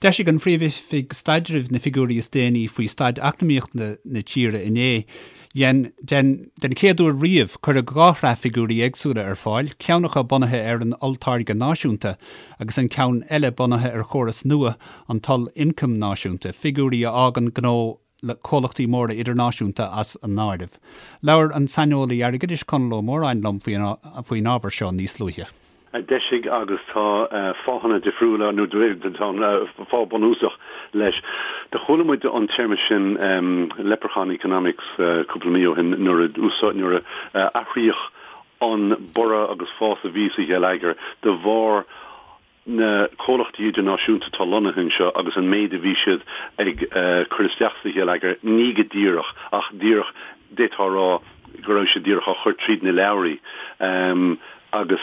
D'eisigh an Phríomh-Oifig Staidrimh na figiúirí is déanaí faoi staid eacnamaíochta na tíre inné. Den den chéad uair riamh, cuireadh 2 shraith figiúirí éagsúla ar fáil, ceann acu bunaithe ar an olltáirge náisiúnta agus an ceann eile bunaithe ar chóras nua, an t-ollioncam náisiúnta, figiúirí a fhágann gnó le comhlachtaí móra idirnáisiúnta as an áireamh. Labhair an saineolaí airgeadais Conall Ó Móráin liom faoin ábhar seo níos luaithe. a d'eisigh agus tá fáthanna difriúla, nó tá fáth bunúsach leis. Do chuala muid an téarma sin leprechaun economics cúpla mí ó shin nuair a nuair a athraíodh an borradh agus fás a bhí sa gheilleagar de bharr na comhlachtaí idirnáisiúnta atá lonnaithe anseo agus an méid a bhí siad ag cur isteach sa gheilleagar, ní go díreach ach díreach, d'fhéadfá a rá go raibh siad díreach á chur tríd na leabhraí agus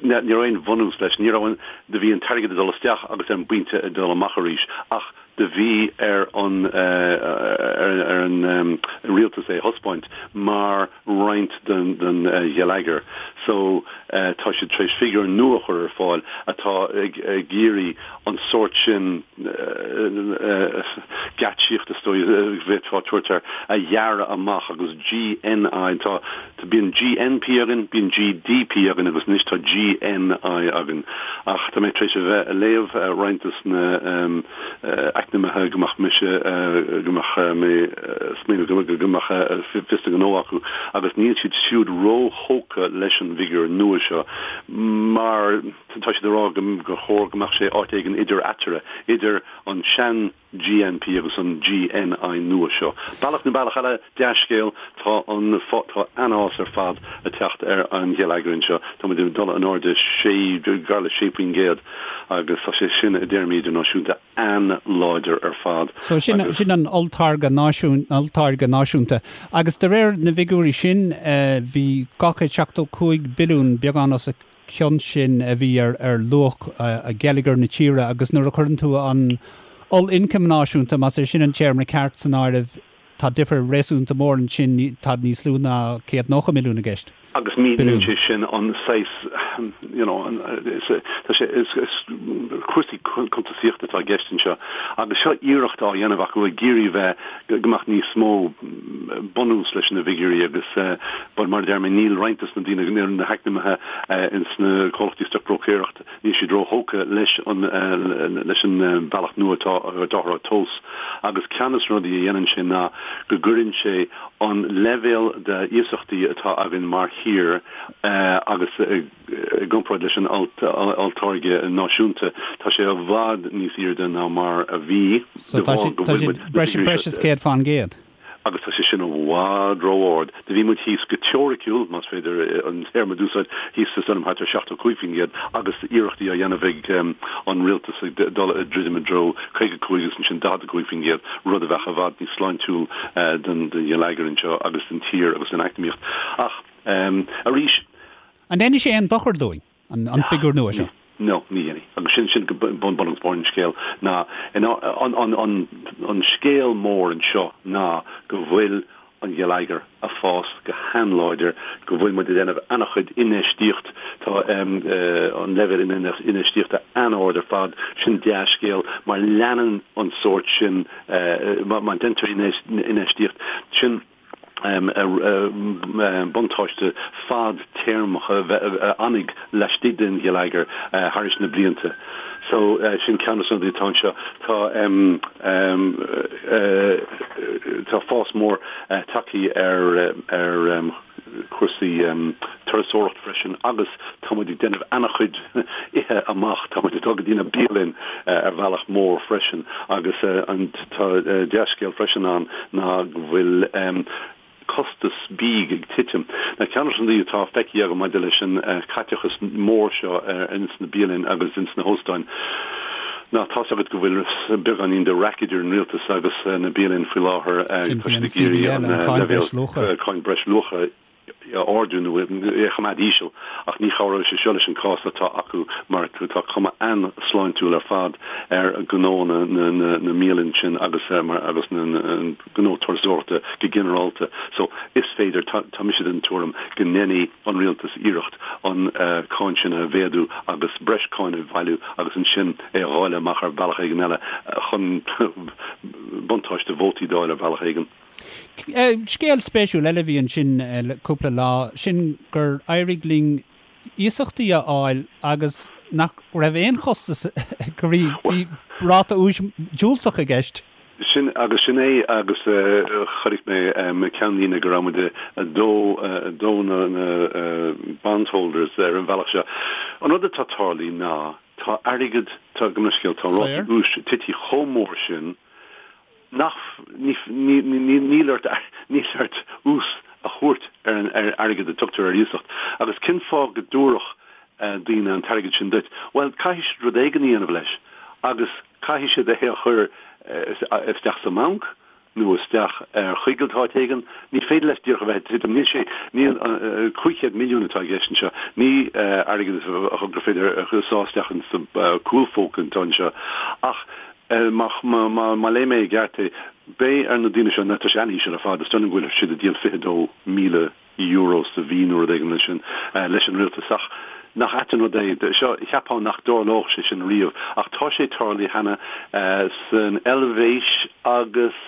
ní raibh aon bhunús leis. Ní raibh an, do bhí an t-airgead ag dul isteach agus ar an bpointe ag dul amach arís ach do bhí ar an ar an rialtas é a thaispeáint mar roinnt den den gheilleagar. So tá siad tar éis figiúr nua a chur ar fáil atá ag ag iarraidh an sórt sin geáitsíocht is dóigh a bhféadfá tabhairt air a ghearradh amach agus GNI tá Tá, bíonn GNP againn, bíonn GDP againn agus anois tá GNI againn. Ach tá mé tar éis a bheith a léamh roinnt des na eacnamaithe go mbeadh mise, go mbeadh mé smaoineamh go go mbeadh fios a ngnó acu agus níl siad siúd róthógtha leis an bhfigiúr nua seo mar tá siad ag rá go gur chóir go mbeadh sé áit éigin idir eatarthu, idir an sean GNP agus an GNI nua seo. Bealach nó bealach eile, dea-scéal, tá an tá an-fhás ar fad ag teacht ar an gheilleagar anseo. Tá muid ag dul in airde sé, gar le 6% agus tá sé sin i dtéarmaí idirnáisiúnta an-láidir ar fad. So sin agus. sin an olltáirge náisiún, olltáirge náisiúnta. Agus de réir na bhfigiúirí sin, bhí 275 billiún, beagán os a chionn sin a bhí ar luach gheilleagar na tíre agus nuair a chuireann tú an ollioncam náisiúnta, más é sin an téarma ceart, san áireamh, tá difear réasúnta mór ansin, tá níos lú ná 190 milliún i gceist. Agus míníonn sé sin an saghas, you know, tá sé, is cúrsaí cuntasaíochta atá i gceist anseo agus seo iarracht á dhéanamh acu ag iarraidh bheith, go mbeadh níos mó bunús leis na bhfigiúirí agus but mar a deir mé níl roinnt des na daoine, na heacnamaithe ins na comhlachtaí stocbhróicéireachta, níl siad róthógtha leis an leis an bealach nua atá atáthar á thomhas agus ceann des na rudaí a dhéanann sé ná go gcuireann sé an leibhéal de iasachtaí atá againn mar thír agus i gcomparáid leis an olltáirge náisiúnta, tá sé i bhfad níos airde ná mar a bhí de bharr go bhfuil muid na figiúirí seo. Breis is 100%. Agus tá sé sin i bhfad ró-ard. Do bhí muid thíos go teoiriciúil, más féidir an téarma d'úsáid, thíos is dóigh liom thart ar 75% agus iarrachtaí á dhéanamh ag an rialtas ag dul ag druidim i dtreo 55 agus ansin 45%, rud a bheadh i bhfad níos sláintiúil don gheilleagar anseo agus don tír agus don eacnamaíocht. Ach arís. An ndéanfaidh sé aon dochar dúinn, an figiúr nua seo? No, ní dhéanfaidh. Agus sin, sin bun agus barr an scéil ná, an, an, an, an scéal mór anseo ná go bhfuil an gheilleagar a' fás go han-láidir, go bhfuil muid a' déanamh an-chuid infheistíocht, tá an leibhéal infheistíochta an-ard ar fad, sin dea-scéal mar leanann an sórt sin, má deintear infheistíocht, sin, buntáiste fadtéarmach a fhanfaidh laistigh den gheilleagar thairis na blianta. So, sin ceann de na rudaí atá anseo. Tá tá fás mór tagtha ar ar cúrsaí turasóireacht freisin agus tá muid ag déanamh an-chuid ithe amach, tá muid ag dul go dtí na bialanna ar bhealach mór freisin agus an tá dea-scéal freisin ann ná go bhfuil costas bídh ag titim. Now ceann de na rudaí atá feicthe agam maidir leis an caiteachas mór seo ins na bialanna agus ins na hóstáin ná tá's agat go bhfuil beagáinín de raic idir an rialtas agus na bialanna faoi láthair Sin faoi an CBL, an Cáin Breisluacha. Cáin Breisluacha. a ardú nó é a choimeád íseal ach ní chabhróidh sé seo leis an cás atá acu mar tá cuma an-sláintiúil ar fad ar ghnó na na mbialann sin agus agus na gnó turasóireachta go ginearálta. So is féidir, tá mise den tuairim go ndéanfaidh an rialtas iarracht an cáin sin a mhéadú agus breis cáin a bhailiú agus ansin é a dháileadh amach ar bhealach éigin eile chun buntáiste vótaí d'fháil ar bhealach éigin. Scéal spéisiúil eile a bhí ansin le cúpla lá, sin gur éirigh linn iasachtaí a fháil agus nach raibh aon chostas, go bhí ráta úis diúltach i gceist. Sin agus sin é agus chonaic mé ceannlíne go raibh muid ag dó dó na bondholders ar an bhealach seo. An rud atá tarlaithe ná tá airgead, tá, gabh mo leithscéal, tá rátaí úis tití chomh mór sin nach, níl ort, níl ort ús a thabhairt ar an airgead a tugtar ar iasacht. Agus cén fáth go dtabharfadh daoine an t-airgead sin duit? Bhuel, caithfidh siad rud éigin a dhéanamh leis agus caithfidh siad é a chur isteach sa mbanc nó isteach ar choigilt áit éigin. Ní féidir leis díreach a bheith ag titim. Níl sé, níl, 500 milliún atá i gceist anseo. Ní airgead gur féidir a sá isteach insa chúlphóca atá anseo. Ach Má léigh mé i gceart é, beidh ar na daoine seo, tá sé an-íseal ar fad, is dóigh liom go bhfuil siad ag díol €22,000 sa mhí nó rud éigin mar sin leis an rialtas. Ach nach ait an rud é, seo, cheapfá nach dtarlódh sé sin riamh, ach tá sé tarlaithe cheana san Eilvéis agus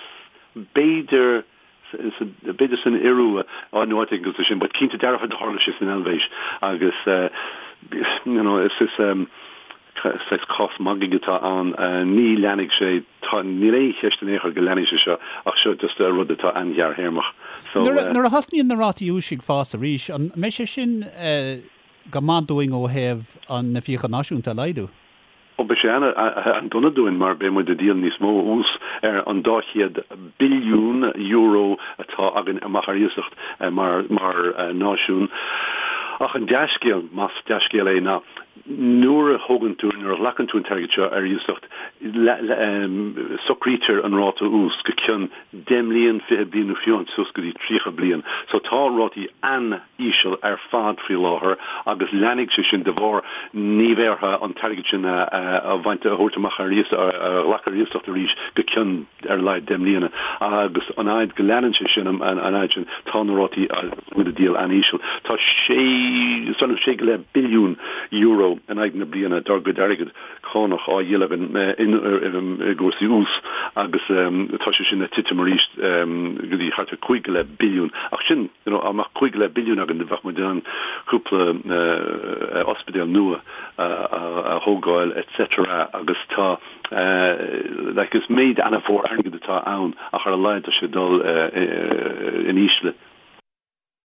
b'fhéidir b'fhéidir san Iorua nó áit éigin cosúil sin, but cinnte dearfa do tharla sé san Eilvéis agus you know is is saghas cás magaidh atá ann. Ní leanfaidh sé, tá, níl aon cheist in aon chor go leanfaidh sé seo ach seo just rud atá an-ghearrthéarmach. So. Nuair a thosnaíonn na rátaí úis ag fás arís, an mbeidh sé sin go maith dúinn ó thaobh na fiacha náisiúnta a laghdú? Ó, beidh sé an-dona dúinn mar beidh muid ag díol níos mó ús ar an €200 billiún atá againn amach ar iasacht mar náisiún. Ach an dea-scéal, más dea-scéal é, ná nuair a thógann tú, nuair a ghlacann tú an t-airgead seo ar iasacht, socraítear an ráta ús go cionn 10 mbliain, 20 bliain nó fiú suas go dtí 30 bliain. So tá rátaí an. íseal ar fad faoi láthair agus leanfaidh sé sin de bharr ní bheidh orthu an t-airgead sin a bhaint, a thabhairt amach ar iasacht, a ghlacadh ar iasacht arís go cionn ar a laghad 10 mbliana agus an fhaid go leanann sé sin, an fhaid sin tá na rátaí muid ag díol an-íseal. Tá sé, sé go leith billiún euro in aghaidh na bliana dár gcuid airgid cánach á dhíol againn i gcúrsaí ús agus tá sé sin ag titim arís go dtí thart ar 5 go leith billiún. Ach sin, you know, dá mbeadh 5 go leith billiún againn bheadh muid in ann cúpla ospidéal nua a thógáil etc. Agus tá, like, is méid an-mhór airgid atá ann ach ar a laghad tá sé ag dul in ísle.